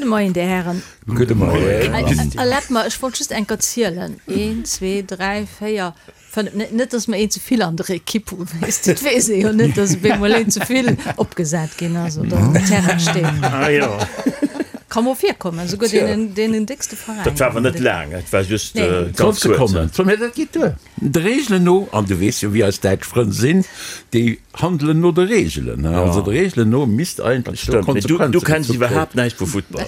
Gudde Moien, Dir Hären. Gudde Moien. Erlaabt mer, ech wollt just eng Kéier zielen, Een, zwee, dräi, véier, fënnef, net, dass mer een ze vill an der Ekipp hunn, weess de, et weess ee jo net, dass op eemol een ze vill opgesat ginn ass oder um Terrain steet. Ah jo. Ka mol virkommen, esouguer deenen, deenen déckste Veräiner. Dat war awer net laang, et war just ganz kuerz. Sekonnen, mä dat geet duer. De Reegelen no, an du weess jo wéi eis däitsch Frënn sinn, déi handelen no de Reegelen, also de Reegelen no misst eigentlech do Konsequenze gezu kréien. Du kenns iwwerhaapt näischt vu Futtball.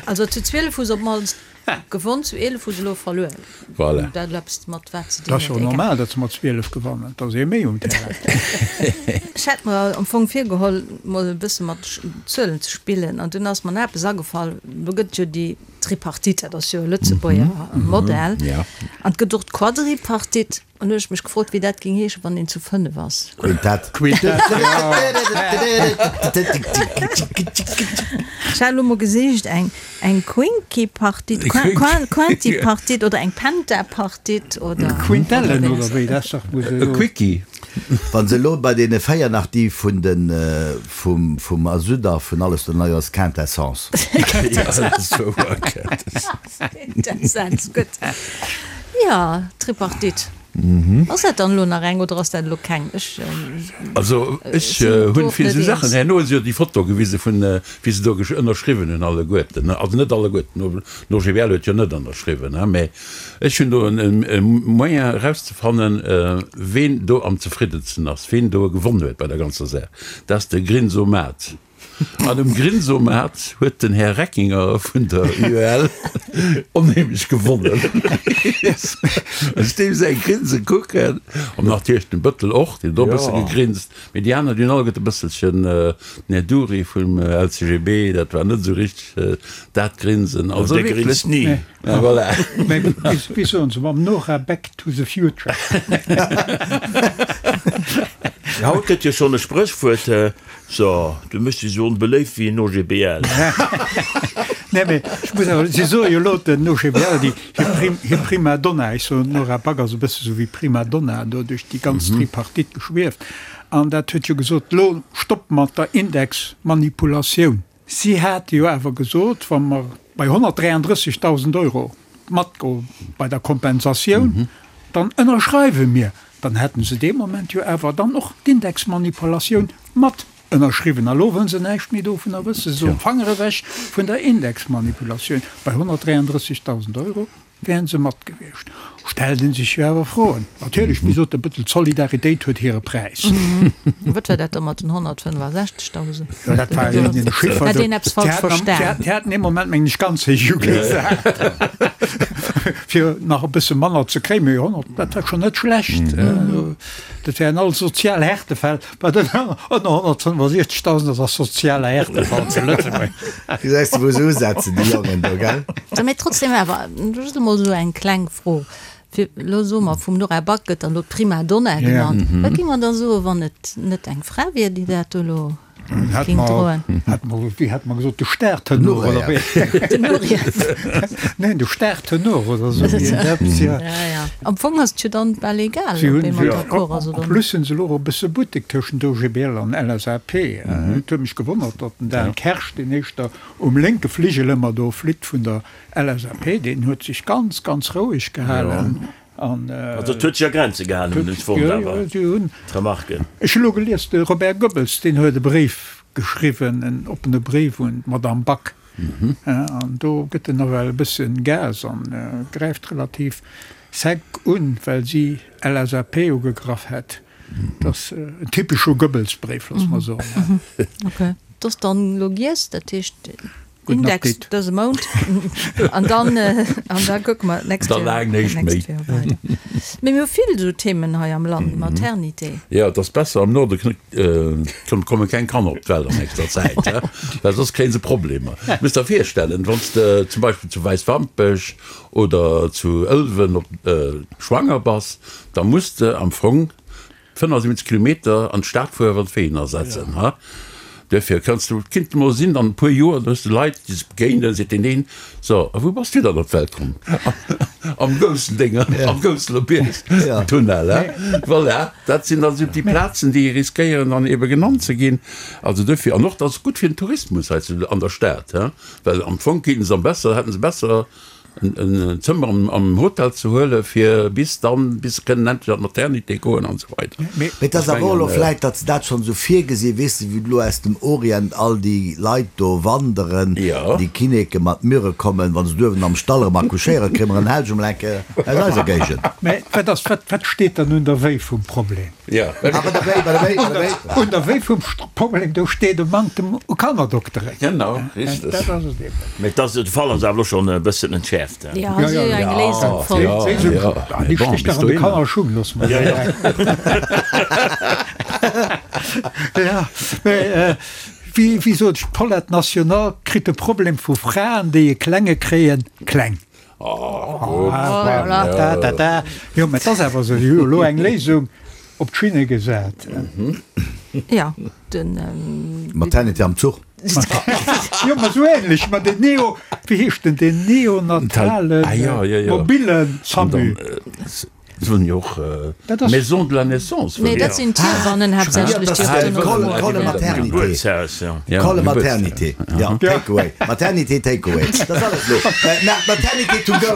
Also zu 12 hu se op d'mannst gewonn, zu 11 hu se elo verluer. Voilà. Dat huet eppes mat wat ze dinn huet. Dat ass jo normal, datt se mat 12 gewannen, et ass ee méi um Terrain. Ech hat mer am Fong virgeholl, mol e bësse mat Zuelen ze spillen an dunn ass mer nach eppes agefall, do gëtt et jo déi Tripartite, dat ass jo e Lëtzebuerger Modell, an et gëtt och d'Quadripartite. An hu ech mech gefrot, wéi dat géing heeschen, wann een zu 5 ass. Quintett. Quintett, jo. Ech hat elo mol gesicht, eng, eng Quinquipartite, Quintipartite oder eng Pentapartite oder. Quintellen oder wéi, dat ass dach wou se elo. E Quickie. Wa se elo bei deene 4 nach déi vun de, vum, vum Azud a vun alles do nei ass, Quintessence. Quintessenz, gutt. Jo, Tripartite. Ass dat dann elo nach eng oder ass dat elo keng? Ech Also ech sinn do hunn och fir net esou Saachen, eens. herno hu se jo déi Foto gewise vun wéi se do ënnerschriwwen hunn alleguerten, also net alleguerten, den OGBL huet jo net ënnerschriwwen, mä ech hunn do e Moyen erauszefannen, ween do am zefriddensten ass, ween do gewonn huet bei der ganzer Saach, dat ass de Grinsomat. An um Grinsomat huet den Här Reckinger vun der UEL onheemlech gewonnen. Ech deem säi Grinse kucken, an natierlech den Bëttel och, deen huet och e bësse gegrinst, mee déi aner, déi hunn alleguerte e bësselchen, den Här Dury vum LCGB, dat war net esou richteg dat Grinsen. Also wierklech. Dee grinst ni. Ja, voilà. Mä wéi soen se, mam Nora Back to the future. Haut gëtt jo schonn e Spréchwuert, So, du méchs dech esou onbeléift wéi en OGBL. Nee, mee ech muss awer, si soe jo elo den OGBL, déi hir Prim, hir Prima Donna, ech soen, d'Nora Back ass e bësse sou wéi Prima Donna do duerch déi ganz Tripartite geschwieft, an dat huet jo gesot, elo Stopp mat der Indexmanipulatioun. Si hate jo awer gesot, wa mer bei 133.000 Euro matgoe bei der Kompensatioun, dann ënnerschreiwe mir. Dann hätten se dee Moment jo awer dann och d'Indexmanipulatioun mat ënnerschriwwen. A lo wëllen se näischt méi dovunner wëssen. Se soen, Fanger ewech vun der Indexmanipulatioun. Bei 133.000 Euro wären se mat gewiescht. Stellt ee sech jo awer Froen. Natierlech, wéi sot de Bëttel, d'Solidaritéit huet hire Präis. Wat war dat da mat den 165.000? Jo, dat war een Chiffer. Hat een eppes falsch verstan? Déi haten ee Moment, mengen ech, ganz héich ugesat, fir nach e bësse manner ze kréien. Mee 100, dat war schonn net schlecht. Dat wären all sozial Härtefäll. Wat ënner 165.000 ass, ass sozialer Härtefall zu Lëtzebuerg. Gesäis de wou se usetzen, déi Jongen do, gell? Sou, mee trotzdem awer just emol esou eng kleng Fro, fir elo soe mer, vum Nora Back gëtt dann elo d'Prima Donna genannt. Wat géing mer da soen, wann et net eng Fra wier, déi dat do elo géing droen? Hätt mer, wéi hat mer gesot, de Startenor oder wéi? Den Nureyev. Neen, de Startenor oder esou iergendeppes, jo. Ja, ja. Am Fong ass et jo dann bal egal, Si ob hunn ee mat jo, d'accord ass en oder net. plus hunn se elo och e bësse Buttek tëschent OGBL an LSAP. Et huet mech gewonnert, datt den Dan Kersch, deen éischter um lénke Fligel ëmmer do flitt vun der LSAP, deen huet sech ganz, ganz roueg gehalen. An, Also et huet sech a Grenze gehalen, hunn ech fonnt, jo, awer jo, si hunn, d'Remarken. Ech hu elo gelies, de Robert Goebbels, deen huet e Bréif geschriwwen, en oppene Bréif un d'Madame Back. An do gëtt en nawell e bëssen Gas an gräift relativ sec un, well si LSAP ugegraff hätt. Dat ass en typesche Goebbels-Bréif, loosse mer soen. Ok, dat ass dann elo giess, dat heescht Gudden Index Appetit. dëse Mount an dann an da kucke mer d'nächst Da Joer laang näischt méi. d'nächst Joer weider. Mee mir hu vill esou Themen hei am Land, Maternité. Jo, et ass besser am Norde komme keng Kanner op d'Welt an nächster Zäit, well soss kréie se Problemer. Muss der virstellen, wann s de zum Beispill zu Wäiswampech oder zu Ëlwen op schwanger bass, da muss de am Fong 75 Kilometer an d'Stad fueren, wann d'Ween ersetzen. Duerfir kanns du, et kinnt emol sinn, an e puer Joer, da hues de Leit, déi sech begéinen, seet deen een, So, a wou bass du dann op d'Welt komm? Am goussen Dénger, am Gousseler Bierg Tunnel, he? Voilà, dat sinn dann esou déi Plazen, déi riskéieren dann ebe genannt ze ginn. Also duerfir, an och dat ass gutt fir den Tourismus hei zu, an der Stad, he? Well am Fong kéinten se am besser, hätten se besser en Zëmmer am Hotel ze huele fir bis dann, bis se kënnen endlech an d'Maternité goen an esou weider. Mee et ass awer och elo vläit, datt se dat schonn esou virgesinn, weess de, wéi elo aus dem Orient all déi Leit do wanderen, déi Kinnéke mat Myrrhe kommen, wa se duerwen am Stall erëm accouchéieren, kréie mer en Helg emol eng Kéier aus eiser Géigend. Mä wat ass, wat, wat steet dann un der Wéi vum Problem? Ah, bei der Wéi, bei der Wéi, bei der Wéi. Un der Wéi vum Problem, do steet e Manktem u Kannerdokteren. Genau, richteg. Dat ass et eben. Mä dass de Fall ass awer elo schonn e bëssen entschäerft. Jo, si hu eng Léisung fonnt. Ja, ja, déi stécht nach an de Kannerschung, looss mer dat. Ja, mä wéi, wéi sot ech, d'Paulette National kritt de Problem vu Fraen, déi e Klenge kréien, kleng. Jo, mä et ass awer esou, si hu jo elo eng Léisung op d'Schinne gesat. Ja, den. Maternité am Zuch. Jo, ma esou ähnlech, ma den Neo, wéi heescht den, den neonatale mobile SAMU. Se wëllen jo och Maison de la naissance. Nee, dat sinn d'Hiewannen haaptsächlech, déi op den Call maternité. Call maternité. Ja, take away. Maternité take away. Dat ass alles elo. Maternité to go.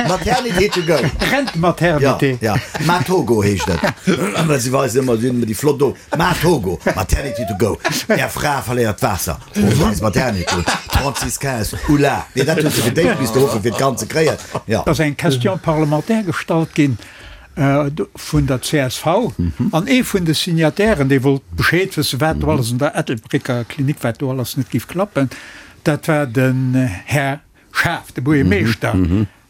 Maternité to go. Rent-maternité. Ja, ja. Matogo heescht et. Well se weisen ëmmer, si hunn ëmmer déi flott do. Matogo, Maternity to go. Är Fra verléiert d'Waasser. Rufft eis Maternity un. 36 15, Oula! Nee, dat huet se fir d'éischt misste ruffen, fir d'Kand ze kréien. Jo. Et ass eng Question parlementaire gestallt ginn vun der csv an ee vun de Signatairen, dee wollt Bescheed wëssen, wat do alles an der Ettelbrécker Klinik, wat do alles net géif klappen, dat war den Här Schaaf, de Buergermeeschter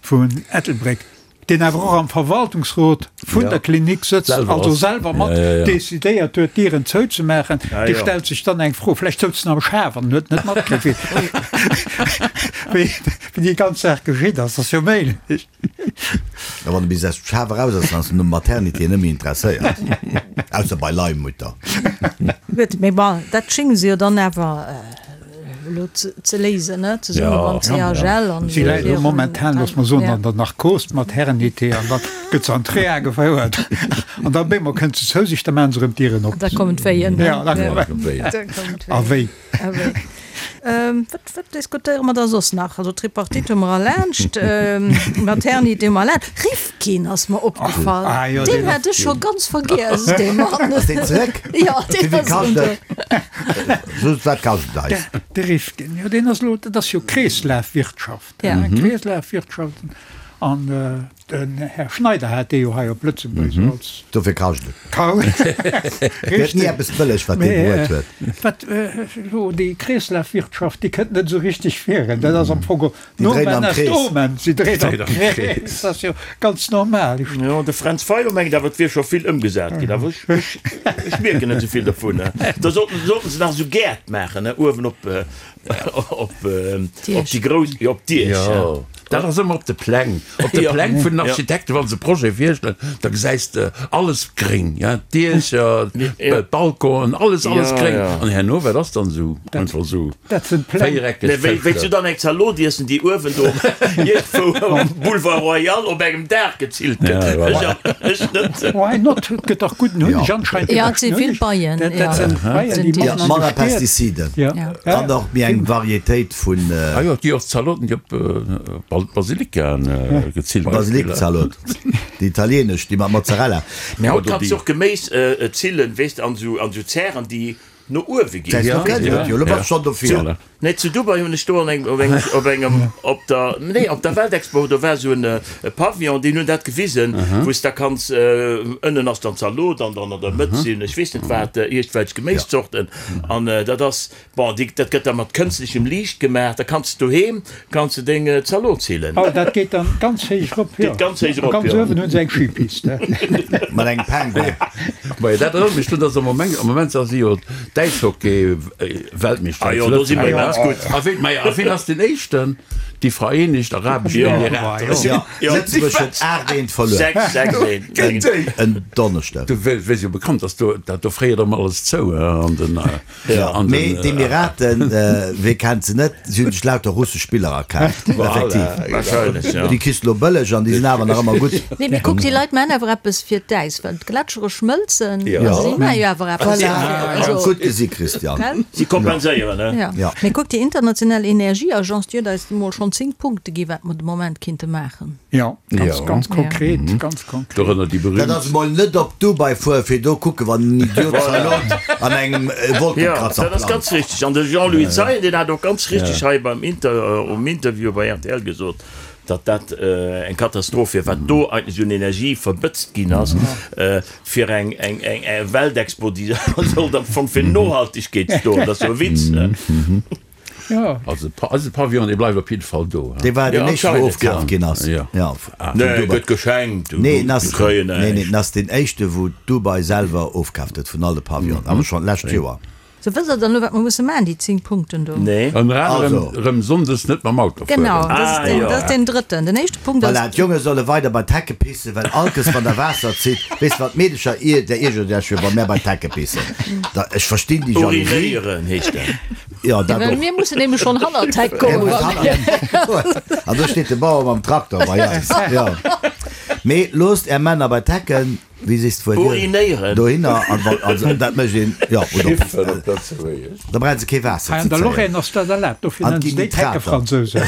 vun Ettelbréck, deen awer och am Verwaltungsrot vun der Klinik sëtzt, also selwer mat decidéiert huet, d'Dieren zouzemaachen. Dee stellt sech dann eng Fro, vläicht souz en am Schaf an huet net matkritt, wéi déi ganz Saach geschitt ass. Dat ass jo méiglech. A wann e bis aus dem Schaf eraus ass, dann ass en un Maternité net méi interesséiert, ausser bei Leihmutter. Gutt, mee bon, dat schénge se jo dann awer elo ze léisen, ne, zesumme mam CHL an Si läit elo momentan, looss mer soen, an der Narkos mat Herrenité an da gëtt se an d'Reha gefouert an da bémol kënnt se zou sech, da maachen se erëm d'Dieren op. Da kommen d'Wéien. Ja, da kommen d'Wéien. A wéi. A wéi. Wat, wat diskutéiere mer da soss nach? Also Tripartite hu mer erlaanscht, Maternité hu mer erlaanscht. Rifkin ass mer opgefall. Ah jo, Deen hat ech scho ganz vergiess, dee Mann. Ass deen zeréck? Jo, deen Wéi ass erëm kascht do. et? Just wat kascht et eis? De Rifkin, jo deen ass elo, dat ass jo Kreeslafwirtschaft, Ja. Kreeslafwirtschaft an den Här Schneider hat dee jo hei op Lëtzebuerg esou als. Dofir kascht et. Kau. Gëtt ni eppes bëlleg wat dee bruet huet. Wat elo déi Kreeslafwirtschaft, déi kënnt net esou richteg virun. Dat ass am Fong Déi dréinen Nomen am est Krees. omen, si dréint am Krees. Dat ass jo ganz normal. Jo, de Fränz Fayot mengt awer, et wier scho vill ëmgesat ginn, awer ech, ech, ech mierken net esou vill dovun. Da sollten, sollten se nach esou Gäert maachen, ne, uewen op, op, op déi grouss, jo, op d'Diech. Jo, dat ass ëmmer op de Pläng, op de Pläng vun den Architekten, wa se Projet virstellen, da gesäis de alles gréng, ja, d'Diecher, d'Balconen, alles, alles gréng. An herno, wat ass dann esou? Einfach esou. Dat sinn d'Pläng. Véiereckeg Nee, wéi, wéi s du dann eng Zalot iessen, déi uewen do iergendwou um Boulevard Royal op engem Daach gezillt gëtt. Ja, voilà. Ech, ech net. Why not? Et gëtt dach gudden Hunneg anscheinend. Ja, et si vill Beien. Dat, dat sinn Beien, déi Ja, matten an de manner Stied. Pestiziden Ja. Ja. an och méi eng Varietéit vun. Ah jo, et gi och Zaloten, déi op Basilikaen gezillt ginn. Basilikzalot, déi italienesch, déi mat Mozzarella. Mee haut kanns du och Geméis zillen, weess de, an esou, an esou Zären, déi no uewe ginn. Säis du kenns et jo, lo bass schonn dofir. Nee, zu Dubai hunn ech do an engem, op engem, op engem, op der, nee, op der Weltexpo, do war esou en Pavillon, deen hunn dat gewisen, wou s da kanns, ënnen ass dann Zalot an dann an der Mëtt sinn ech weess net wat, iergendwelch Geméiszorten an dat ass, bon, déi, dat gëtt da mat kënstlechem Liicht gemaach, da kanns de doheem, kanns de deng Zalot zillen. Oh, dat geet dann ganz héich erop, jo. Geet ganz héich erop, Ganz jo. uewen hunn se eng Skipiste. Mat engem Penguin. Majo, dat erënnert mech drun, dass am Moment, am Moment si jo d'Äishockey-Weltmeeschter Ah zu jo, do si mer Lëtzebuerg. immens gutt. A ween, majo, a ween ass deen éischten? Déi Vereenegt Arabesch Emirater. Jo, Lëtzebuerg huet 8, 1 verluer. 6, 6, 1. Géint déi! En Donneschdeg. Du wéi jo bekannt ass, do dat do fréiert ëmmer alles zou an den. Jo, mee d'Emiraten, wee kennt se net, si hunn sech lauter russesch Spiller akaaft. Effektiv. Wahrscheinlech, jo. Déi kriss de lo bëlleg an déi sinn awer nach ëmmer gutt. Nee, mee kuck, déi Leit maachen awer eppes fir d'Äis, well d'Gletschere schmëlzen. Jo. Si maache jo awer eppes Voilà. dofir. Also. Gutt gesi, Christian. Gell? Si kompenséieren, ne? Jo. Jo. Mee kuck, déi international Energieagence, déi huet eis emol schonn 10 Punkte gi wat mer de Moment kinnte maachen. Jo, ganz, Jo. ganz konkret, ganz konkret. Dorënner déi berühmt. Dat ass emol net op Dubai fueren, fir do kucken, wann en Idiot Zalot an engem Jo, Wolkekratzer dat ass plant. ganz richteg. An de Jean-Louis Zeien, deen hat och ganz richteg hei beim Inter, um Interview bei rtl gesot, datt dat eng Katastroph wier, wat do eigentlech un Energie verbëtzt ginn ass, fir eng, eng, eng, eng Weltexpo, déi sollt am Fong fir Nohaltegkeet stoen. Dat ass jo e Witz, ne? Jo. Also eise Pavillon, dee bleift op jidde Fall do. Dee war deen Ja, éischte, wou anscheinend, ofkaf ja. ginn ass. Ja. Ja, vun Nee, Dubai. gëtt geschenkt, du, Nee, en du ass, kréien nee, nee, näischt. en ass deen éischte, wou Dubai selwer ofkaaft huet vun all de Pavillonen, awer schonn d'lescht Joer. Sou, wësst der dann elo, wat mer musse maachen, déi 10 Punkten do? Nee. Ënner anerem Also. erëm sonndes net mam Auto fueren. Genau, dat ass Ah, deen, jo. dat ass deen drëtten. Den éischte Punkt ass. Voilà, d'Jonge solle weider bei d'Hecke pissen, well allkes wann der Waasser zitt, weess de wat d'Meedecher ier, där iergert iech jo, wa mär bei d'Hecke pissen. Da, ech verstinn déi Jalousie. Urinéieren heescht dat. Jo, dat Well och. mir mussen nämlech schonn hannert d'Heck Mir kommen. mussen hannert. An do steet de Bauer mam Traktor bei eis. Jo. Mee loosst är Männer bei d'Hecken, wéi sees de wuel, Urinéieren. dohinner an wann, also dat mécht een, jo, oder Kiffen op Lëtzebuergesch. da brauche se kee Waasser Hei ze an der zéien. Lorraine ass dat erlaabt, dofir An nennen se ginn déi Nitrater. d'Heckefransousen.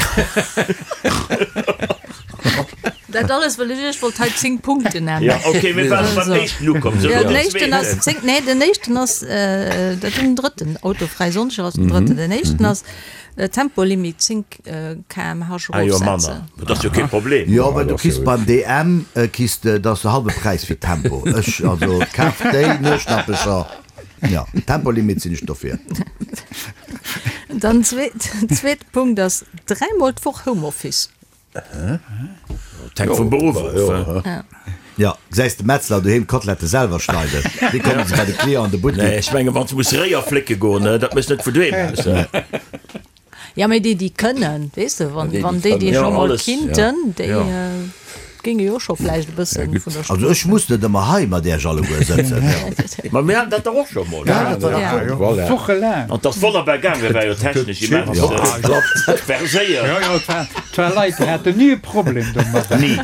Dat alles, well ech iech wollt hei 10 Punkten nennen. Ja, okay, mir waren beim éischten ukomm. So, Ja, den den éischten ass zweeten. 10, nee, den éischten ass, äh, dat den drëtten, autofräi Sonndeg ass den drëtten. Den éischten ass äh, Tempolimit 10 äh, km/h Ah jo, manner. erofsetzen. Dat ass jo kee Problem. Jo, mä dat du ass kriss jo beim DM äh, kriss de, dat ass de halbe Präis fir Tempo. Ech, also kaf déi Nueschnappecher. Ja, Tempolimit sinn ech dofir. Dann zweet, zweete Punkt ass dräimol d'Woch Homeoffice. Dat hänkt vum Beruff of. Ja, gesäis de Metzler doheem d'Kotlette selwer schneiden? Wéi kommen se bei de Client an de Nee, Buttek? ech menge wann s de muss Réier flécke goen, dat méchs net vun doheem aus. Ja, mee déi, déi kënnen, weess de, wann Déi, déi wann déi, déi kënnen. scho Ja, mol alles, kinnten, déi Ja. géinge jo scho vläicht e bësse vun der Also ech muss net ëmmer hei mat Iech alleguer sëtzen. Ma mir haten dat dach och scho mol. Ja, dat war dach gutt. Voilà. Wochelaang. An 't ass wonnerbar gaangen, war jo technesch immens verséiert. Jo, jo, et war, et war Leit, déi haten ni e Problem domadder. Ni.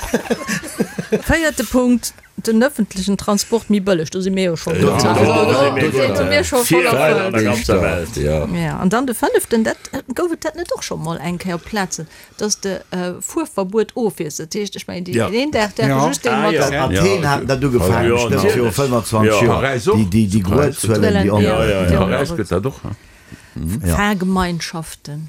Véierte Punkt, den ëffentlechen Transport méi bëlleg. Do si mir jo schonn. Jo, Also, do do si mir do si mir scho voll Virreiter an erfëllt. der ganzer Welt. Ja. Ja, an dann de fënneften, dat gouf et dat net och scho mol eng Kéier op Plazen, dass de Fuerverbuet ofwiesst. Dat heescht, ech mengen, déi een Dag däerfe Ja. just déi Ah, mat. ja. Athen haten dat ugefaangen, Ja, bestëmmt natierlech. viru 25 Ja. Joer. Paräis och. Déi, déi, déi Gruezuelen, déi Ja, onmöglech. ja, ja. Paräis gëtt dat och. Ja. Fahrgemeinschaften.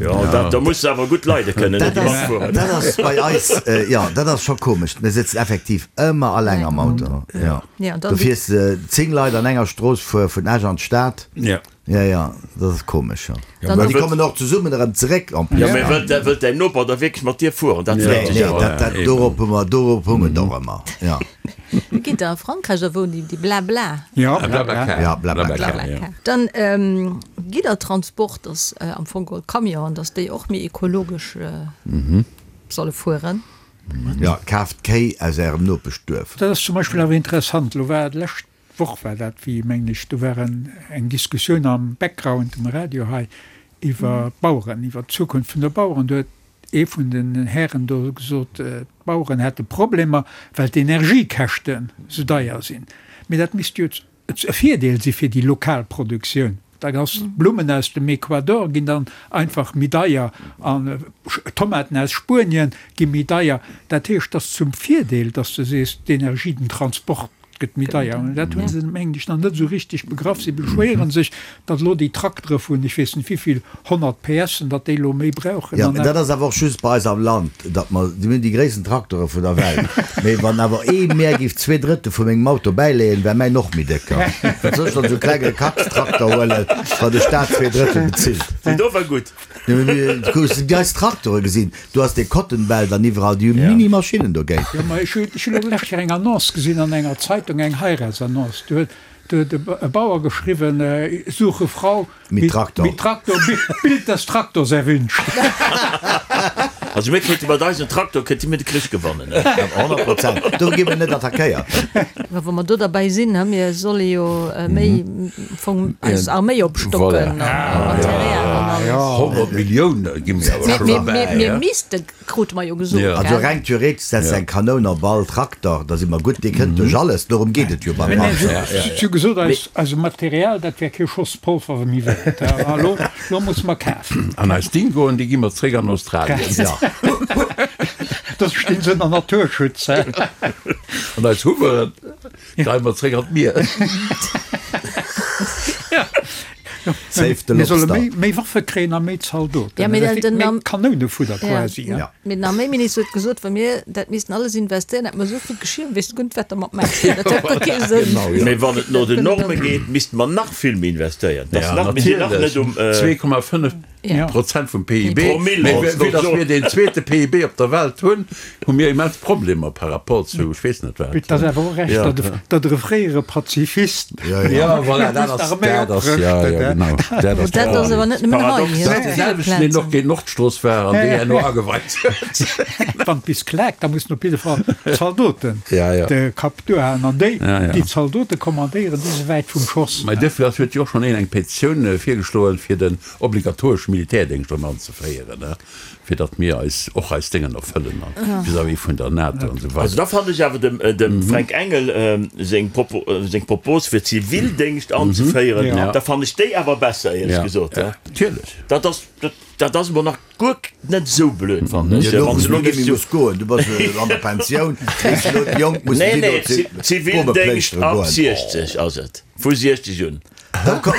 Jo, dat, do muss de awer gutt leide kënnen, Dat déi ass, matfueren. dat ass bei eis, jo, dat ass scho komesch. Mir sëtzen effektiv ëmmer alleng am Auto. Jo. Ja, an dann Du fiers 10 Leit an enger Strooss fuer vun Esch an d'Stad. Ja. Ja, ja, dat ass komesch, jo. Dann An déi kommen och zesummen erëm zeréck en plus. Jo, mee wëllt, wëllt däin Noper da wierklech mat dir fueren? Dat Nee, freet sech nee, awer. dat, dat, dorop hu mer, dorop hu mer et och ëmmer, ja. Wéi geet dat a Frankräich da wou déi, déi Blabla? Ja, blabla. Blablacar. Ja, Blablacar. Blablacar, ja. Dann Giddertransport ass am Fong geholl Camionen, dass déi och méi ekologesch solle fueren. Ja, kaaft Kéi aus ärem Nopeschduerf. Dat ass zum Beispill awer interessant, elo war d'lescht Woch war dat, wéi mengen ech, do war en eng Diskussioun am Background um Radio hei iwwer d'Baueren, iwwer d'Zukunft vun de Baueren. Do huet ee vun den Hären do gesot, d'Baueren hätte Problemer, well d'Energiekäschten esou deier sinn. Mee dat misst jo e Virdeel si fir déi lokal Produktioun. Da ass d'Blummen aus dem Ecuador ginn dann einfach méi deier an Tomaten aus Spuenien gi méi deier. Dat heescht, et ass zum Virdeel, datt s de sees, d'Energie, den Transport gëtt méi deier. An dat hu se, mengen ech, nach net esou richteg begraff. Si beschwéiere sech, datt elo déi Traktere vun ech weess net wéivill 100 PSen, datt déi elo méi brauchen. Jo, An mä dat ass awer och just bei eis am Land, datt mer, mir hunn déi gréissten Traktere vun der Welt, mä wann awer ee mär géif zwee Drëttel vu mengem Auto bäileeën, wär mäin och méi décker. Wat soll ech dann esou e klenge Kackstrakter huelen, wann de Staat zwee Drëttel bezilt? Déi do war gutt. Jo, mä mir, du hues déi eis Traktere gesinn, do ass dee Cotton Belt an iwwerall, déi hu Mini-Maschinnen dogéint. Jo, mä ech hu, ech hunn elo d'lescht Kéier eng Annonce gesinn an enger Zeitung, eng Heiratsannonce, do huet. Do huet e Bauer geschriwwen, Suche Frau mit Traktor, mit Traktor, Bild des Traktors erwünscht. Also mir kéinte mat eisem Traktor kéinte mir de Krich gewannen. 100 Prozent. Do gi mir net attackéiert. Mä wa mer do derbäi sinn, mir solle jo méi am Fong eis Arméi opstocken a Material an alles. 100 Millioune gi mir awer scho derbäi. Mir misste Krute mer jo gesot, gell? Also reng theoretesch setzt eng Kanoun op all Traktor, da si mer gutt, dee kënnt duerch alles, dorëm geet et jo beim Panzer. Si hu gesot, eise Material, dat wär kee Schoss Polver méi wäert, a lo, lo musse mer kafen. An eis Dingoen, déi gi mer zréck an Australien. Jo. Da stinn se ënner Naturschutz, hä? An eis Hummeren geie mer zréck an d'Mier. Save the Mir solle lobster. méi, méi Waffe kréien a méi Zaldoten. Ja, mee Dat den, méi den, Kanounefudder ja. quasi. Ja. Mee den Arméiminister huet gesot, wa mir dat missten alles investéieren, hätte mer esou vill Geschir, wéisst du guer net, wat der mat maachen. Dat huet guer kee Sënn. Genau, ja. Mee wann et no den Norme geet, misste mer nach vill méi investéieren. Dat ass Ja, nach, mir sinn nach natierlech. net um. 2,5 Ja. Prozent vum PIB. Promille, Mee wollt's vue du dass soen. mir deen zweete PIB op der Welt hunn, hu mir immens Problemer par rapport zu ech weess net wat. Et ass awer och recht, Ja. datt e, datt e fréiere Pazifist Ja, ja. Ja, voilà, dat ass, dat ass, ja, ja, genau, dat ass Dat ass awer net nëmmen hei. Paradox. Dat ass dee selwechten, deen och géint d'Nordstrooss war an déi herno ageweit huet. Wann et bis klaakt, da mussen op jidde Fall d'Zaldoten Ja, ja. de Kapp duerhalen. An déi, Ja, ja. déi d'Zaldote kommandéieren, déi si wäit vum Schoss. Mä duerfir ass, huet jo och schonn een eng Petitioun virgeschloen, fir den obligatoresche Militärdéngscht erëm anzeféieren, fir datt mir eis och eis Déngen erfëllen a vis-à-vis vun der NATO an esou Also weider. da fannen ech awer dem dem Fränk Engel seng Propo seng Propos fir Zivildéngscht anzeféieren, Ja. da fannen ech déi awer besser, éierlech Ja, gesot. ja, natierlech. Dat ass dat dat ass emol nach guer net esou blöd, fannen ech. Jo, do Wann wou se du elo net géifs méi zu muss goen, du bass an der Pensioun, weess elo déi Jonk mussen Nee, déi nee, do Zi Zivildéngscht Boomeplëschtere ab goen. 60 ass et, vu 60 un. Da komm,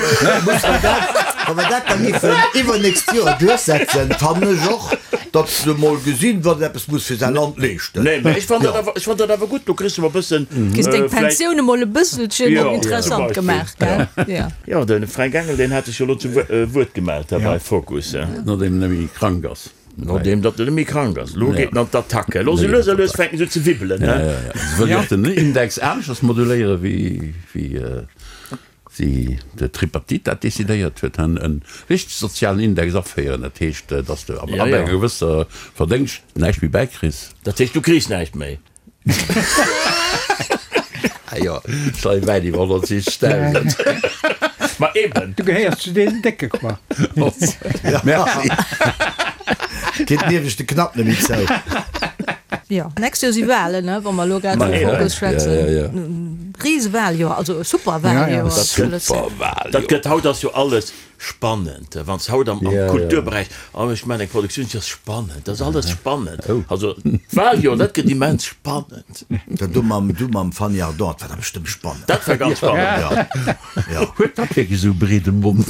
muss mer dat, wa mer dat da giffen iwwernächst Joer duerchsetzen, fannen ech och, datt se emol gesinn, wat een eppes muss fir säi Land leeschten. Nee, mä ech fann dat awer, ech fann dat awer gutt, do kriss de mol e bëssen, Kriss deng vläicht. Pensioun emol e bësselchen Jo, zum interessant Beispill. gemaach, gell? Jo. Jo, de Fränk Engel, deen hat sech jo elo zum Wuert gemellt hei bei Focus. Nodeem en net méi krank ass. Nodeem datt en net méi krank ass. Elo geet en an d'Attacke. Elo sou lues a lues fänken se un ze wibbelen, Ja, he? ja, ja. Se wëll jo och den Index aneschters moduléieren, wéi, wéi si de Tripartite dat decidéiert huet, en e richteg sozialen Index aféieren. Dat heescht, datt s de ab Ja, ja. enger gewësser Verdéngscht näischt méi bäikriss. Dat heescht, du kriss näischt méi? Ah jo, ech leie wäit iwwer 160.000. Ma eben. Du gehéiers zu deenen Décke, quoi. Merci. Geet nieweschte Knapp net méi zou. Jo, nächst Joer si Wahlen, ne, wa mer elo grad Ma vum eben. Fokus schwätzen. Ja, ja, ja. Risewahljoer, also Superwahljoer. Dat gëtt, Superwahljoer. dat gëtt, haut ass jo alles spannend. Wann s haut am, am Ja, ja. Kulturberäich, oh ech maachen eng Produktioun, dat ass spannend, dat ass alles spannend. Oh. Also d'Wahljoer, dat gëtt immens spannend. Dat do mam, du mam Fanny Ardant, dat war da bestëmmt spannend. Dat war ganz spannend. Ja, ja. Huet dat wierklech esou e breede Mond?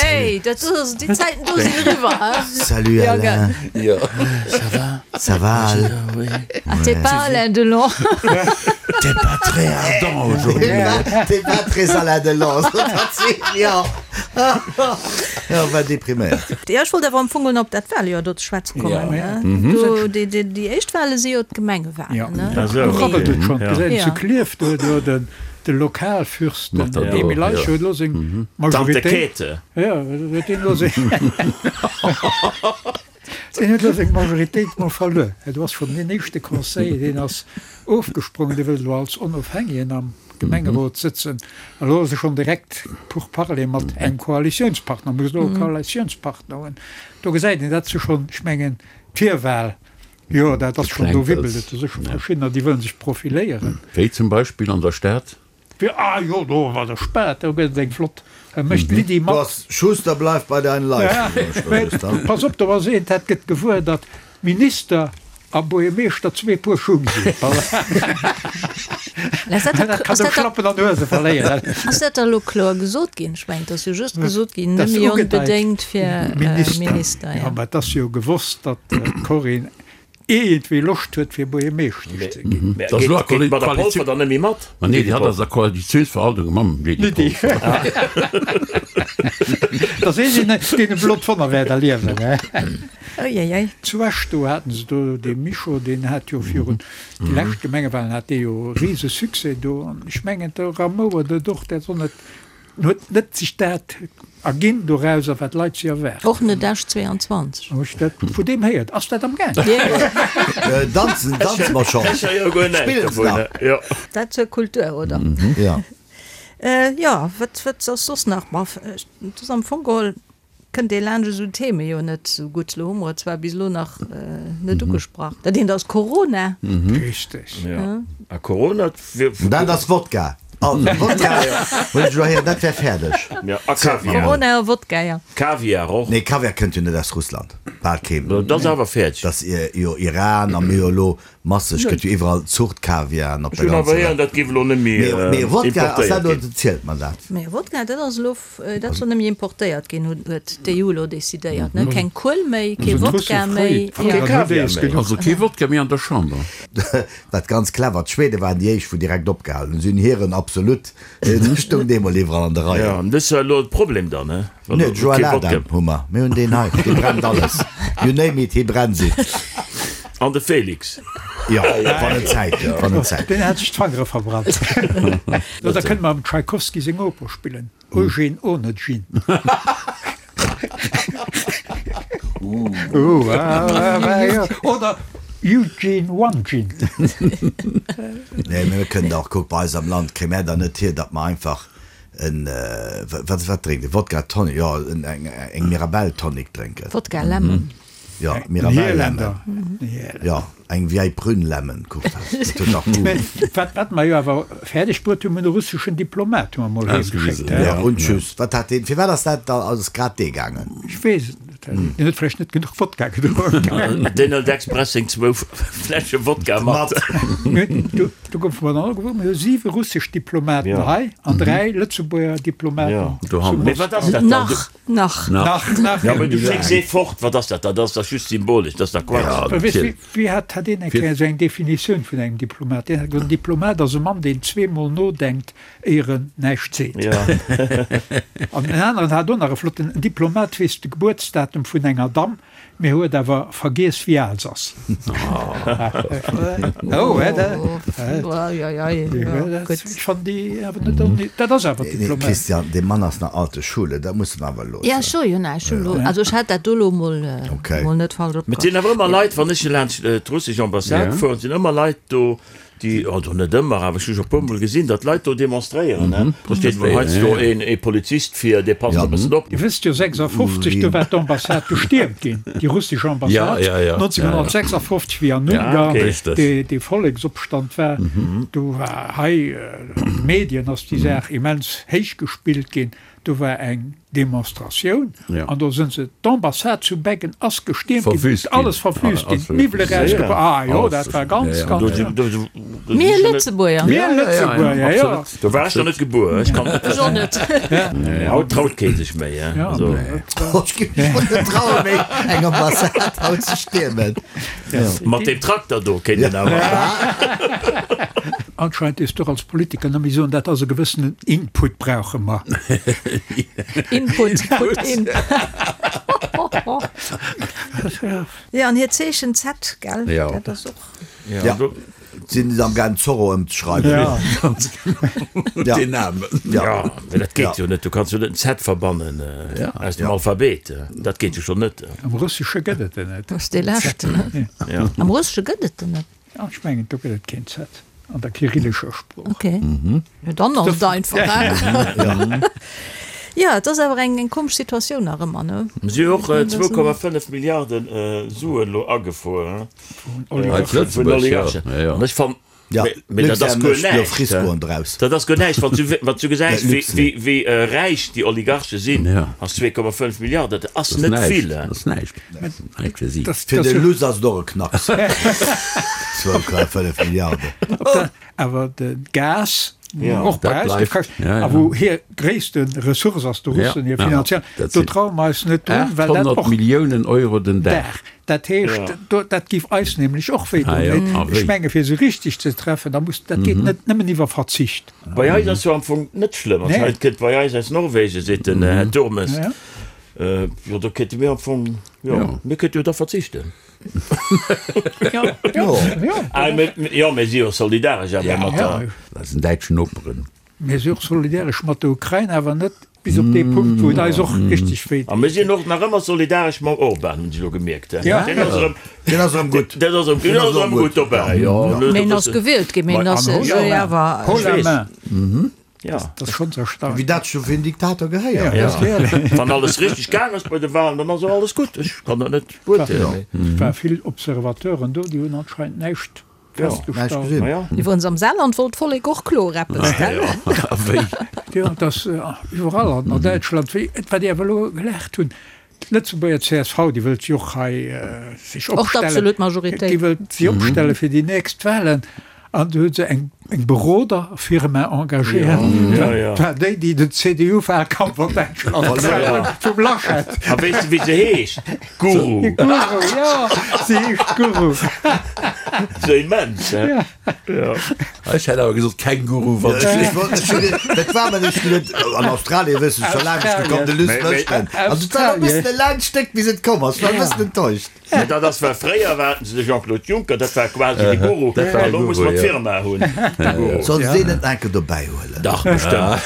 Ey, dat ass, déi Zäiten do sinn eriwwer, hein? Salut Ja, Alain. gell. Jo. Ça va? Ça va Al? Oui. Ah, t'es pas Alain Delon. T'es pas très ardent aujourd'hui. T'es pas très Alain Delon, sot hatt zu him, jo. Jo, war depriméiert. Jo, ech wollt awer am Fong op dat Wahljoer do ze schwätze kommen. Ja. Do, déi, déi, déi éischt Wahle si jo d'Gemengewahlen, ne? Ah, sou. Do rabbelt et schonn. Ja. Gesäit Ja. zu Klierf, do, do den, De Lokalfürst, den Emil Eicher, huet elo seng Tante Majoritéit. Käthe. Jo, huet deen elo seng, deen huet elo seng Majoritéit mol verluer. Do ass schonn deen éischte Conseiller, deen ass ofgesprongen, dee wëllt elo als Onofhängegen am Gemengerot sëtzen. A elo ass e schonn direkt Pourparlers mat engem Koalitiounspartner, muss elo e Koalitiounspartner hunn. Do gesäit een, dat si schonn, ech mengen, d'Virwahl Jo, dat ass schonn, do wibbelt et. Do si scho verschiddener, déi wëllen sech profiléieren. Wéi zum Beispill an der Stad? Ah jo, do an der Stad, do gëtt et eng flott, da mécht d'Lydie Du mat. ass Schuster bleif bei deinen Leisten. Pass op, do ass een, dat gëtt gewuer, datt Minister a Buergermeeschter zwee Puer Schung sinn. Dat kann e Schlappen an Huese verléieren. Ass dat da elo kloer gesot ginn? Ech mengen, et ass jo just gesot ginn, Dat net ass méi ugedeit. onbedéngt fir Minister. Minister. Jo, mä et ass jo gewosst, datt d'Corinne. Iergendwéi Loscht huet fir Buergermeeschtesch ze ginn. Mä geet d'Madame Polfer dann net méi mat? Ma nee, déi hat ass a Koalitiounsverhandlunge mam Lydie Polfer. Da sees een, deen e blot Wonner wäert erliewen. Uiuiui. Zu Esch do haten se do dee Mischo, deen hat jo virun déi lescht Gemengewahlen hat dee jo e rise Succès do. An ech mengen de Ramouer dat och, dat soll net En huet net sech dat erginn dorauser, wat d'Leit si erwaarden. Och net Esch 22. Hu ech dat vu deem héiert? Ass dat am Gaang? Danzen, danze mer schonn. Spillen se nach? Dat zur Kultur, oder? Jo. Jo, wat, wat ass soss nach? Ma, et ass am Fong geholl Kënnt ee laanscht esou Theme jo net esou gutt. Elo hu mer et zwar bis elo nach net ugesprach. Dat eent ass Corona. Richteg. Jo. A Corona. Dat ass Wodka. Also Wodka hunn ech elo héieren, dat wär fäerdeg. Jo, a Kaviar. Corona a Wodka, jo. Kaviar och. Nee, Kaviar kënnt jo net aus Russland. Bal keen. Dat ass awer fäerdeg. Dat ass jo Iran a mir jo elo masseg gëtt jo iwwerall Zuchtkaviaren op der ganzer Welt. Ech hunn awer héieren, dat géif elo net méi importéiert ginn. Mee Wodka, ass dat elo, zielt mer dat? Mee Wodka, dat ass elo Dat soll net méi importéiert ginn, huet d'EU elo decidéiert. Keng Kuel méi, kee Wodka méi. Kee Kaviar méi. Also kee Wodka méi an der Chamber. Wat ganz clever, d'Schwede waren déi éischt wou direkt opgehalen hunn. Si hunn hiren Absolut, dee stoung deemol iwwerall an de Reien. Jo, an dës ass elo de Problem dann, he? Nee, de Joël Adam hu mer. Mir hunn deen hei, dee brennt alles. You name it, hie brennt it. An de Félix. Jo, wann en Zäit huet, wann en Zäit huet. Deen hat sech d'Fangere verbrannt. Da kënne mer dem Tschaikowski seng Oper spillen, Eugene Onegin. Oder Eugene Onegin. Nee, mee mir kënnen och, kuck, bei eis am Land kréie mär da net hier, datt mer einfach en, wat, wat drénkt een? Wodka Tonic, jo, eng Mirabelle Tonic drénken. Wodka Lemon. Jo, Mirabelle Lemon. Jo, eng Vieille Prune Lemon, kuck, dat huet dach Goût. Wat, wat mer jo awer fäerdeg bruet hunn, mir hunn e russeschen Diplomat hu mer mol heem geschéckt. Jo, und tschüss. Wat hat deen, firwat ass dat da, ass grad dee gaangen? Ech weess et net. Deen huet vläicht net genuch Wodka gedronk. Deen hëlt express seng zwou Fläsche Wodka mat. Do, do goufe mer dann och gewuer, mir hu siwe russesch Diplomaten hei an dräi Lëtzebuerger Diplomaten zu Moskau. Mee wat ass dat dann? Nach. Nach. Nach, nach. Ja, mee du schécks ee fort, wat ass dat dann? Dat ass dach just symbolesch, dat ass dach Quatsch. Ja, weess, wéi, wéi hat, hat een eng Kéier esou eng Definitioun vun engem Diplomat? Deen hat gesot, en Diplomat ass e Mann, deen zweemol nodenkt, éier en näischt seet. Ja. An en aneren hat och nach e flotten, En Diplomat weess de Gebuertsdatum vun enger Damm, Mee huet awer vergiess wéi al se ass. Oh, hè, dat, ech fannen déi awer net onni, dat ass awer Diplomat. Christian, dee Mann ass nach alte Schule, dat muss en awer loossen. Ja, ech soe jo näischt, ech hu lo, also ech hat dat do lo mol, mol net falsch opgefasst. Mee et sinn awer ëmmer Leit, wann ech laanscht d'russesch Ambassade fueren, sinn ëmmer Leit do, Déi, also net ëmmer, awer ech hu scho e puermol gesinn, datt Leit do demonstréieren. Do steet mol heiansdo een ee Polizist vir, dee passt e bëssen op. Dir wësst jo, 56, do war d'Ambassade gestiermt ginn, déi russesch Ambassade, 1956, wéi an Ungarn dee Volleksopstand war. Do war hei an de Medien ass déi Saach immens héich gespillt ginn. Do war eng Demonstratioun an do sënn se, d'Ambassade zu Beggen ass gestiermt ginn, alles verwüst ginn, d'Miwwele rausgebracht, ah jo, dat war ganz, ganz schlëmm. Mir Lëtzebuerger. Mir Lëtzebuerger, jo. Do war ech nach net gebuer, ech kann et net. Ech och net. Haut traut kee sech méi, hein. Ech géif mech och net trauen méi eng Ambassade haut ze stiermen. Mat deem Trakter do kéint een awer. Anscheinend dierfs du och als Politiker net méi soen, dat ass e gewëssenen Input brauche mer. Input, put in. Jo, an hiert Zeechen Z, gell? Jo. Dat ass och. Ja, sinn se am gaang Zorro ëmzeschreiwen. Ja. Ganz genau. Ja. Deen Namen. Ja, mee dat geet jo net. Du kanns jo net en Z verbannen aus dem Alphabet. Dat geet jo schonn net. Am Russesche gëtt et en net. Dat ass dee leschten, ne? Ja. Am Russesche gëtt et en net. Ja, ech mengen, do gëtt et keen Z an der kyrillescher Sprooch. Okay. Jo, dann ass et einfach, hein? Jo, et ass awer eng komesch Situatioun nach ëmmer, ne? Si hu och 2,5 Milliarden Suen elo agefuer, hein? Vun Oligarchen. An ech fannen, mee dat ass guer näischt. Dat ass guer näischt, wann s du, wann s du gesäis, wéi, wéi räich déi Oligarche sinn, ass 2,5 Milliarden, dat ass net vill. Dat ass näischt. Näischt fir si. Fir de Luss ass et och e Knacks, 2,5 Milliarden. Awer de Gas. Och bei eis géif kaschten, a wou hir gréisste Ressource ass, de Russen hir finanziell, do traue mer eis net drun, well dat och. 800 Milliounen Euro den Dag. Dat heescht, dat géif eis nämlech och wéi doen. Ech menge fir se richteg ze treffen, da muss, dat geet net nëmmen iwwer Verzicht. Bei eis ass jo am Fong net schlëmm, also hei kënnt bei eis aus Norwegen, seet den Här Turmes, jo do kéinte mir am Fong, jo mir kéinte jo da verzichten. Jo, mir si jo solidaresch awer mat der. Eisen däitschen Noperen. Mir si och solidaresch mat der Ukrain, awer net bis op dee Punkt, wou et eis och richteg wéi deet. A mir sinn och nach ëmmer solidaresch mam Orban, hunn ech elo gemierkt. Deen ass erëm. Deen ass erëm gutt. Deen ass erëm gutt dobäi, jo. Mee en ass gewielt ginn, mee en ass esou awer. Haut la main. Ja. Dat ass schonns erstaunlech. Wéi dat scho fir en Diktator gehéiert. Ja. Wann alles richteg gaang ass bei de Wahlen, dann ass och alles gutt. Ech kann dat net beurteelen. Et war vill Observateuren do, déi hunn anscheinend näischt festgestallt. Ma ja. Iwwerens am Saarland wollt d'Vollek och kloer eppes, gell? A wéi? Jo, et ass iwwerall an Däitschland, wéi, wat déi awer elo gelaacht hunn, D'Lëtzebuerger csv, déi wëllt jo och hei sech opstellen, déi wëllt si opstelle fir déi nächst Wahlen an do hu se eng Beroderfirma engagéiert, dat war déi, déi den CDU-Wahlkampf an Däitschland gemaach hunn, vum Laschet. A weess de wéi se heescht? Guru. Guru, jo, se heescht Guru. Sou immens, he? Ech hätt awer gesot Känguru, wann ech Dat war mer nicht geduet. An Australien wëss ech scho laang nicht gekomm, de Luss Lëschten. Also et war e bëssen e laangt Stéck bis et komm ass. Ech war e bëssen enttäuscht. Mä dat ass well fréier haten se de Jean-Claude Juncker, dat war quasi de Guru, an elo muss mer d'Firma hunn, de Guru. Soll se deen net nach eng Kéier dobäi huelen? Dach, bestëmmt.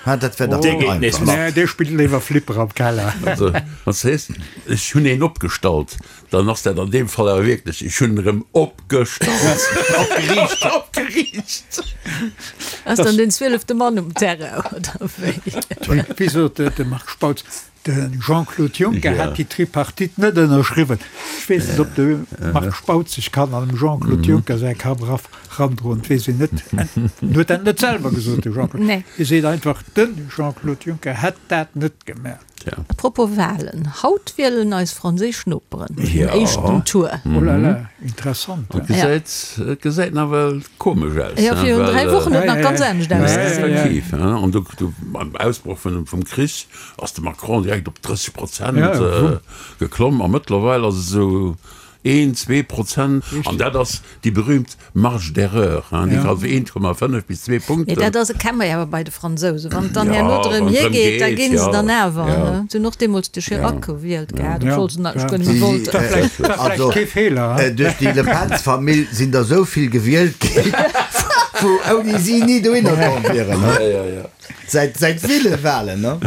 Ha, dat wär dach Dee geet nees einfach. mat. Nee, dee spillt léiwer Flipper am Keller. Also, wann s de sees, ech hunn een opgestallt, Dann ass dat an deem Fall awer wierklech, ech hunn erëm opgestallt. Opgeriicht. Opgeriicht. Ass dann den zwielefte Mann um Terrain, oder wéi? Wéi sot de Marc Spautz, de Jean-Claude Juncker hätt déi Tripartite net ënnerschriwwen. Ech weess net, ob de Marc Spautz sech kann an dem Jean-Claude Juncker säi Kapp erandroen, dat weess een net. En huet dat net selwer gesot, de Jean-Claude. Hie seet einfach, de Jean-Claude Juncker hätt dat net gemaach. A propos Wahlen, haut wielen eis franséisch Noperen den éischten Tour. Oh la la, interessant. Et gesäit, et gesäit nawell komesch aus. Jo, virun 3 Wochen huet nach ganz anescht ausgesinn. Effektiv, an do, do beim Ausbroch vun, vum Krich ass de Macron direkt op 30 Prozent geklomm a mëttlerweil ass et esou een, 2%, an dat ass déi berühmt Marge d'erreur, hein, déi kann 1,5 bis 2 Punkten. Mee dat ass, kenne mer jo awer bei de Fransousen, wann et dann herno drëm hir geet, da ginn se dann awer, ne? Se hunn och deemools de Chirac gewielt gehat, obschwuel se natierlech guer net méi wollten. Also, duerch déi Le Pen-Famill sinn der esou vill gewielt ginn, wou ouni si ni dohinner komm wieren, ne? Säit säit ville Wahlen, ne?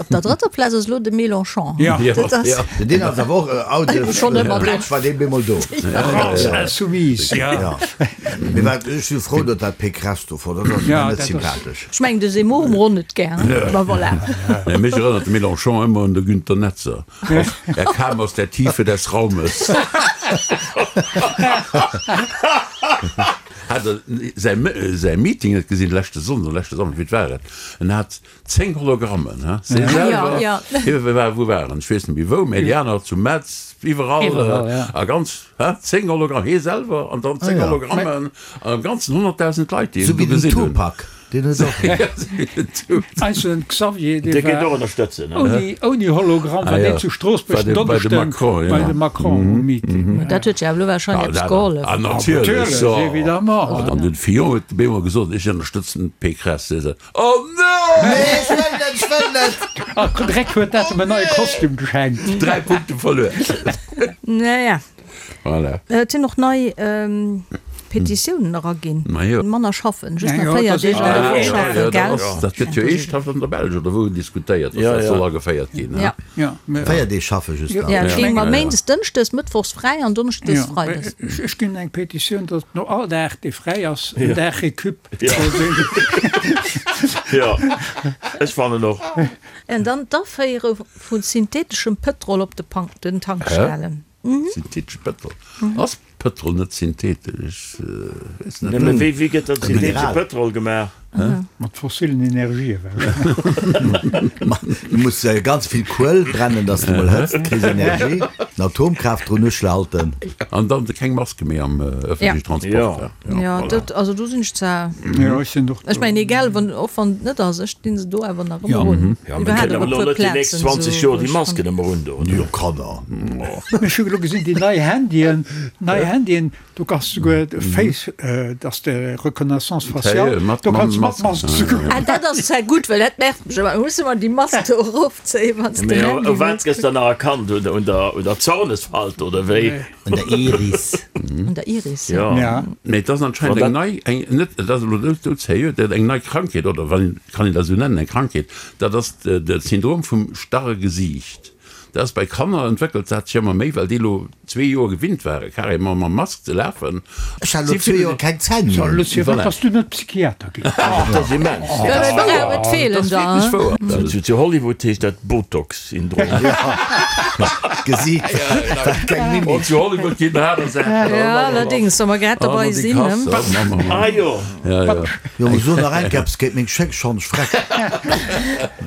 Op der drëtter Plaz ass elo de Mélenchon. Ja. Dat ass. Ja. Deen ass awer och out of Schonn ëmmer do. Plätsch war dee bemol do. France insoumise, ja. Ja. Mee wat, ech si frou, datt dat Pécresse do fort ass, dat ass Ja, mir net dat ass. sympathesch. Ech mengen, de Zemmour hu mer och net gär, ma voilà. Nee, mech erënnert de Mélenchon ëmmer un de Günter Netzer. Er kam aus der Tiefe des Raumes. Hat der säi säi Meeting net gesinn leschte Sonnden oder leschte Samschden, wéi war et? En hat 10 Hologrammen, he, se selwer, hie war, wou war en, ech weess net méi wou, mä déi aner zu Metz, iwwerall, a ganz, he, 10 Hologramm, hie selwer an dann 10 Hologrammen an am Ganzen 100.000 Leit, déi en do gesinn hunn. Deen huet och. Eisen Xavier, dee war ouni, ouni Hologramm, war deen zu Stroossbuerg den Donneschden bei dem Macron um Meeting. Dat huet jo awer elo warscheinlech eppes gehollef. Ah, natierlech, Natierlech, évidemment. An den Fillon huet op eemol gesot, ech ënnerstëtzen d'Pécresse. Hie sot, Oh non! Nee, ech wëll net, ech wëll net! A Dreck huet dat em en neie Kostüm geschenkt. 3 Punkte verluer. Naja. Voilà. Et sinn och nei Petitiounen eraginn. Majo. Manner schaffen, just nach Jo, 4 dat ass Deeg an der Woch schaffen, gell? Dat gëtt jo eeschthaft an der Belsch oder wou diskutéiert, dass dat soll ageféiert ginn. Ja. Ja, mä. 4 Deeg schaffe just nach. Ja, et géing mer méindes, dënschdes, mëttwochs fräi an donneschdes, Ja, freides. ech ginn eng Petitioun, datt no all Dag, dee fräi ass, en Dag Récup soll sinn. Jo, ech fannen och. An dann d'Aféiere vu syntheteschem Pëtrol op de Tankstellen. Synthetesch Pëtrol? Ass Pëtrol net synthetesch? Ech weess net. Mä wéi gëtt dann syntheetesche Pëtrol gemaach? Mat fossilen Energië wahrscheinlech. Du muss ganz vill Kuel brennen, dass de mol Hëtzt kriss, Energie, an Atomkraaft drun uschalten. An dann keng Maske méi am ëffentlechen Transport. Jo, dat, also do sinn ech zwar, Jo, ech sinn och ech mengen egal wann, och wann et net ass, ech dinn se do awer nach ëmmer un. Jo, mir kënnen awer elo net déi nächst 20 Joer déi Masken ëmmer un do. Jo, Kanner. Ech hu elo gesinn, déi nei Handyen, nei Handyen, do kanns de souguer Face, dass de Reconnaissance faciale, do kanns de mat Mask souguer. Ah, dat ass zwar gutt, well dat nervt mech ëmmer, muss ëmmer déi Mask do erofzéien, wann s de den Handy U wat gëss dann nach erkannt? Un der Zornesfalt oder wéi? Un der Iris. Un der Iris, ja. Ja. Mee et ass anscheinend eng nei, eng, net, et ass elo net doudserio, dat eng nei Krankheet, oder wann, kann een dat esou nennen, eng Krankheet, dat ass de Syndrom vum starre Gesiicht. Dat ass bei Kanner, entwéckelt dat sech ëmmer méi, well déi elo zwee Joer gewinnt ware carrément mam Mask ze lafen. Ech hat elo zwee Joer keng Zänn méi. So, Lucie, firwat bass du net Psychiater ginn? Dat ass immens. Ja, dat ass wouer. Et feelen der, hein? Dat ass wierklech wouer. Zu Hollywood heescht dat Botox. Syndrom. Gesiit, dat keng Mimik. Oh, zu Hollywood ginn aner Saachen. Ja, allerdings, wa mer grad dobei sinn, ne? Ah jo. Ja, ja. Jo, mo so nach eng Kéier eppes géint meng Schéck, schonn ech freck.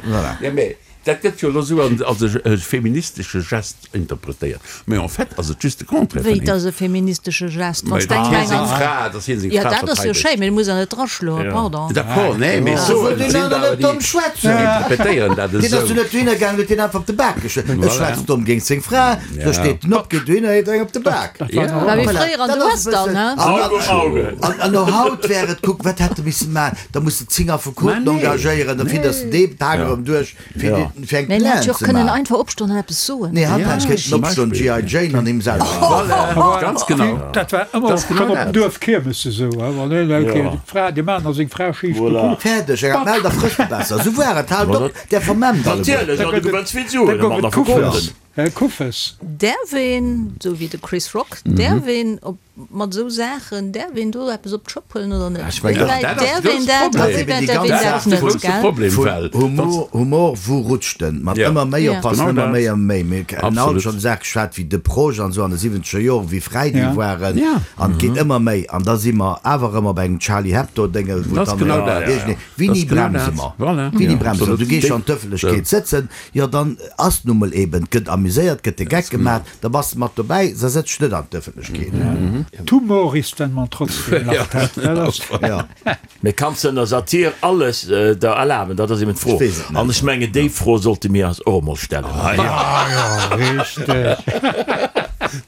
Voilà. Ja, mee dat gëtt jo elo esou als e feministesche Gest interpretéiert. Mee en fait ass et just de Contraire Wéi, vun et engem. ass e feministesche Gest, wann Mee s de datt eng hie seng eng. Fra, datt hie seng Ja, Fra dat ass jo verteidegt. schéin, mee du muss der net draschloen, pardon. D'accord, nee, mee Sou soen, wëllt et deen sinn aner der net déi domm schwätzen. interpretéieren dat Deen ass esou. jo net dohinner gaangen, huet deen einfach op de Bak geschloen. E Voilà. schwätzt domm géint seng Fra, do Ja. steet en op, geet dohinner, heet eng op de Bak. Dat war Ja. nach War wéi Voilà, fréier an dat de ass e Western, bëssen. ne? An, Auge um Auge. an, an no haut wär et, kuck, wat hätt e misse maachen? Da muss de 10 Affekoten Mä nee. engagéieren, da fidders de dee Pak erëm duerch. Fir Ja. déi, fir eng Mä en hätt Plainte jo och ze kënnen maachen. einfach opstoen an eppes soen. Nee, hatt Ja, hätt kéinten zum opstoen, Beispill. G.I. Jane an him selwer. Voilà, ganz genau. Dat war ëmmer Dat ass schonn genau op dem dat. Duerf Kiermes esou, wann een eng Kéier Ja. déi Fra, de Mann a seng Fra schief Voilà. gekuckt. Fäerdeg, eng Meld a frësst besser. Esou war et, haalt op, där vermemmt alleguer. Natierlech, an du gewënns vill Da Suen, gouf mat et der Kuffes. Verkoten. Äh, Kuffes. Däerf een, esou wéi de Chris Rock, däerf een op mat esou Saachen, däerf een do eppes op d'Schëpp huelen oder net? Ech mengen, Wéi wäit dat ass de däerf een grousse dat a Problem. wéi wäit Dat däerf een ass dat de net, grousse gell? Problem, Vun well Humor, Humor, wou rutscht en? Mat Ja. ëmmer méi Ja. oppassen, Genau ëmmer dat. méi, ëmmer méi. Mir hunn alt Absolut. schonn Saache geschwat wéi de Proche an esou an de siwwenzeger Joren, wéi fräi déi Ja. waren. Ja. An et geet ëmmer méi. An da si mer awer ëmmer bei engem Charlie Hebdo-Déngel, wou Dat ass dann genau dat. iergendee, Dat Wéini ass genau bremse dat. mer? Voilà. Wéini Ja, bremse mer? absolut. Du gees schonn an d'Ëffentlechkeet sëtzen, jo dann ass nu mol eben, et gëtt amuséiert, gëtt de Geck gemaach, da bass de mat dobäi, da sëtz dech net an d'Ëffentlechkeet. D'Humor ist, wenn man trotzdem lacht. Dat ass. Ja. Mee kanns de ënner Satir alles der erlaben? Dat ass eben d'Fro. Ech weess et net. An ech mengen, déi Fro sollte mir eis och emol stellen. Ah jo, richteg.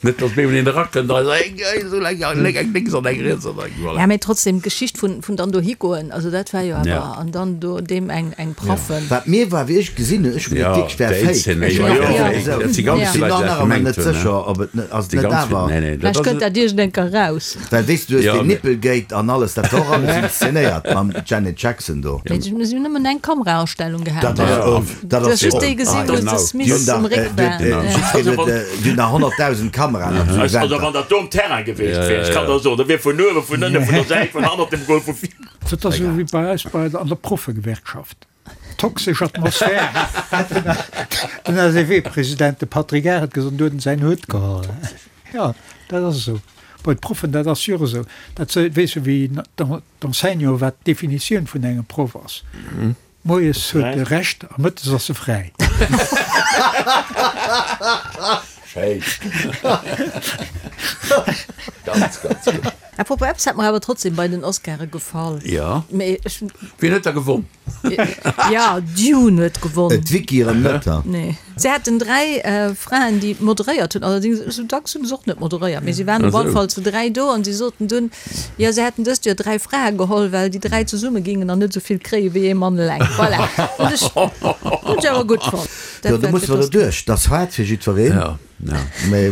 Net, datt mir een erakënnt a seet, eng esou eng, eng lénks an eng riets an eng, voilà. Ja, mee trotzdem, d'Geschicht vun, vun dann dohi goen, also dat war jo awer, Ja. an dann do deem eng, eng Praffen. Wat mir war, wéi ech gesinn hunn, ech hunn Ja, geduecht, wierklech wär déi fake. Zeen, Ech jo, hunn jo, och Ja. esou. dat si ganz Ja. Ech vill sinn Leit, nach déi dat nach ëmmer gemengt net hunn, ne? sécher, ob et net, ass et Déi net ganz vill, awer. nee, nee, dat Vläicht ass kënnt dat iergend eng Kéier raus. Well weess du, du hues Ja, deen mee. Nippelgate an alles, dat war och alles inszenéiert mam Janet Jackson do. Mee si hunn nëmmen eng Kamerastellung gehat. Dat ass, oh, dat Du ass hues just déi oh, gesinn, wou Genau. de Déi Smith hunn um dach, Réck äh, war. déi Ja. jiddwereen huet, äh, déi hunn dach 100.000 Kameraen op sou Also Eventer. wann dat do um Terrain gewiescht wär, ech kann der soen, da wier vun uewen, vun ënnen, vun der Säit, vun hannert dem Goal, vu vir. Dat ass esou wéi bei eis bei an der Proffegewerkschaft. Toxesch Atmosphär, hat den SEW-President, de Patrick Arendt, gesot an du huet en säin Hutt geholl. Jo, dat ass esou. Bei de Proffen, dat ass jo och esou. Dat weess jo wéi d'Enseignant, wat d'Definitioun vun engem Proff ass. Moies huet e Recht a mëttes ass e fräi. Schéin. Ganz, ganz gutt. Apropos, eppes hat mer awer trotzdem bei den Oscare gefall. Ja. Mee ech. Wien huet da gewonn? Ja, Dune huet gewonn. D'Vicky erëm net, ha? Nee. Se haten 3 Fraen, déi moderéiert hunn. Allerdings, esou dacks hunn se och net moderéiert, mee si waren op alle Fall zu 3 do an si soten dunn, jo, se hätten dëst Joer 3 Frae geholl, well déi 3 zesumme gingen an net esou vill kréie wéi ee Mann eleng. Voilà. Hunn ech, hunn ech awer gutt fonnt. Jo, do musse mer derduerch. Dat ass haart fir jiddwereen. Ja.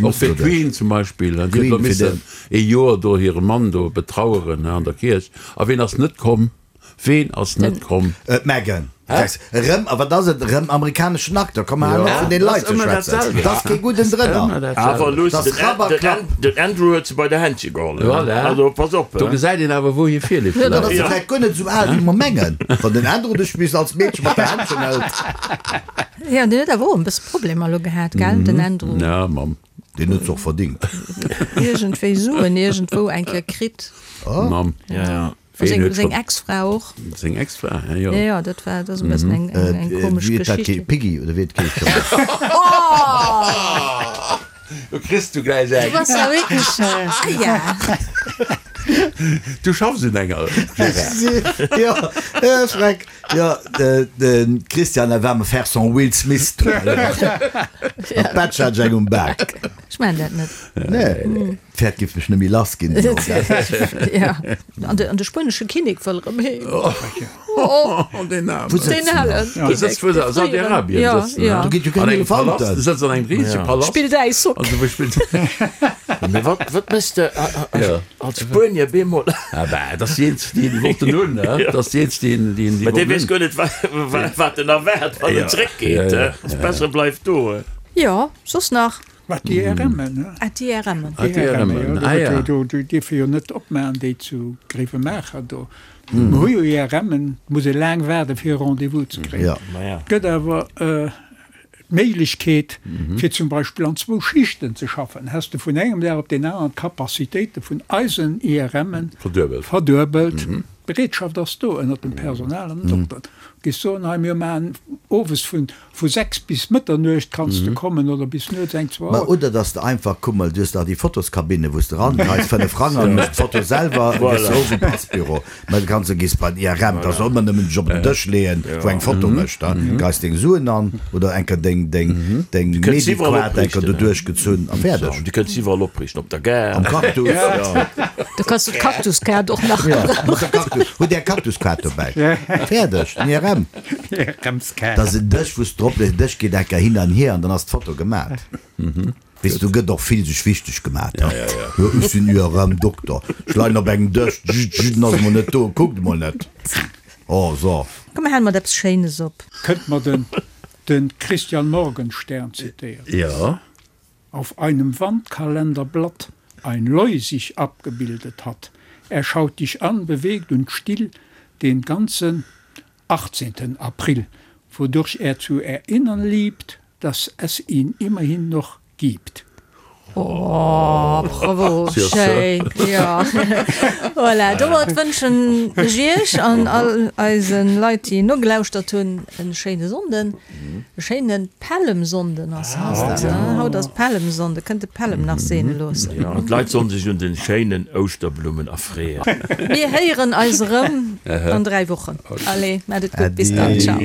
Och fir d'Queen zum Beispill, déi huet elo missen ee Joer do hire Mann do betraueren an der Kierch. A ween ass net komm? Ween ass net komm? D'Meghan. Erëm, a wat ass et? Erëm amerikaneschen Acteur. Komm, hal op vun deene Leit ze schwätzen. Et ass kee gudden drënner. Awer luuss, den Andrew huet se bei der Händche geholl. Also pass op. Do gesäit een awer, wou hir Virlieft läit. Dann ass se vläicht guer net esou al, wéi mer mengen, wann den Andrew dech bis als Meedche mat der Händchen hëlt. Jo, deen huet awer och en bësse Problemer elo gehat, gell, den Andrew? Ja, Mamm. Deen huet se och verdingt. Iergendwéi Suen iergendwou eng Kéier kritt. Mamm. Ja, ja. Ween huet Seng Ex-Fra och. Seng Ex-Fra, ja, jo. Ja, ja, dat war, dat ass e bëssen eng, eng, eng komesch Wéi huet dat Geschicht. geheescht? Piggy, oder wéi huet et geheescht? Do kriss du gläich eng. Du bass ja wierklech, ah ja. Du schaffs un enger, Gérard. Jo, äh, Schreck. Jo, de Christian, elle va me faire son Will Smith tout à l'heure. An d'Betsch hat ech eng um Bak. Ech maachen dat net. Nee, d'Pferd géif mech net méi lass ginn. Ja, an de, an de spuenesche Kinnek wëll erëm heem. Oh, deen Aarmen. Wou sëtzt Deen en halen dann? Dee sëtzt, wou se a Saudi-Arabien Ja, sëtzen, ja. ne? Do geet jo keng An engem Palast. Elefanten. Dee sëtzt an engem risege Palast. Spillt Äishockey. Also, wou spillt. Mee wat, wat méchs de Ja. als Spuenier bemol? Ah bah, dat ass déi eenzeg, déi déi wollten hunn, ne? Dat ass déi eenzeg, déi déi déi Mä dee wollten weess hunn. guer net, wa, wat en erwaart, wann Ja. en zréckgeet. Ja, ja, Ass besser, e bleift do. Jo, soss nach? Wat déi IRMen, ne? Ah, déi IRMen. Ah, déi IRMen, ah ja. Do dierfe jo net opmaachen, déi zu Gréiwemaacher do. Mer hu jo IRMen, et muss ee laang waarden, fir e Rendez-vous ze kréien. Et gëtt awer d'Méiglechkeet, fir zum Beispill an zwou Schichten ze schaffen. Häss de vun engem Dag op deen aneren d'Capacitéite vun eisen IRMen verduebelt. D'Bereetschaft ass do ënnert dem Personal an den Dokteren. Du géifs soen, hei mir maachen owes vun Vu 6 bis Mëtternuecht kanns de kommen oder bis nuets eng, zwou Ma Auer. oder dass de einfach, kuck mol, du hues dach déi Fotoskabinne wou s de rangeis, 5 Frang an méchs d'Foto selwer, gëss se of um Passbüro. Mä du kanns, gees bei den IRM, da soll mer nëmmen dech op den Dësch leeën, wou eng Foto mécht, da geis deng Suen an oder enker deng, deng, deng Du kënns iwwerall Mediquart enker opriichten, do duerchgezunn a fäerdeg. Du kënns iwwerall opriichten, op der Gare. Am Cactus, jo. Du kanns du d'Cactuskaart och nach Jo, gebrauchen. mat der Cactus, hutt Är Cactuskaart dobäi. Fäerdeg, den IRM. Dat ass en Dësch, wou s de drop lees, den Dësch geet enker hin an hier an dann ass d'Foto gemat. Weess du, gëtt och vill sech wichteg gemat, he? Jo, ech sinn IRM-Dokter, ech leien op engem Dësch, jut, jut, en ass emol net do, kuckt emol net. Oh, so. Komm, mir hale mat eppes Schéines op. Kënnt mer den de Christian Morgenstern zitéieren. Jo. Auf einem Wandkalenderblatt ein Leu sich abgebildet hat. Er schaut dich an, bewegt und still den ganzen 18. April, wodurch er zu erinnern liebt, dass es ihn immerhin noch gibt. Oh, bravo, schéin, jo. Voilà, domat wënschen ech Iech an all eise Leit, déi nogelauschtert hunn, e schéine Sonnden, e schéine Pällemsonnden ass haut, ne? Haut ass Pällemsonnden, kënnt de Pällem nach seene loossen. Jo, an d'Leit sollen sech un den schéinen Ouschterblummen erfreeën. Mir héieren eis erëm an 3 Wochen. Allez, maat et gutt, bis dann, ciao.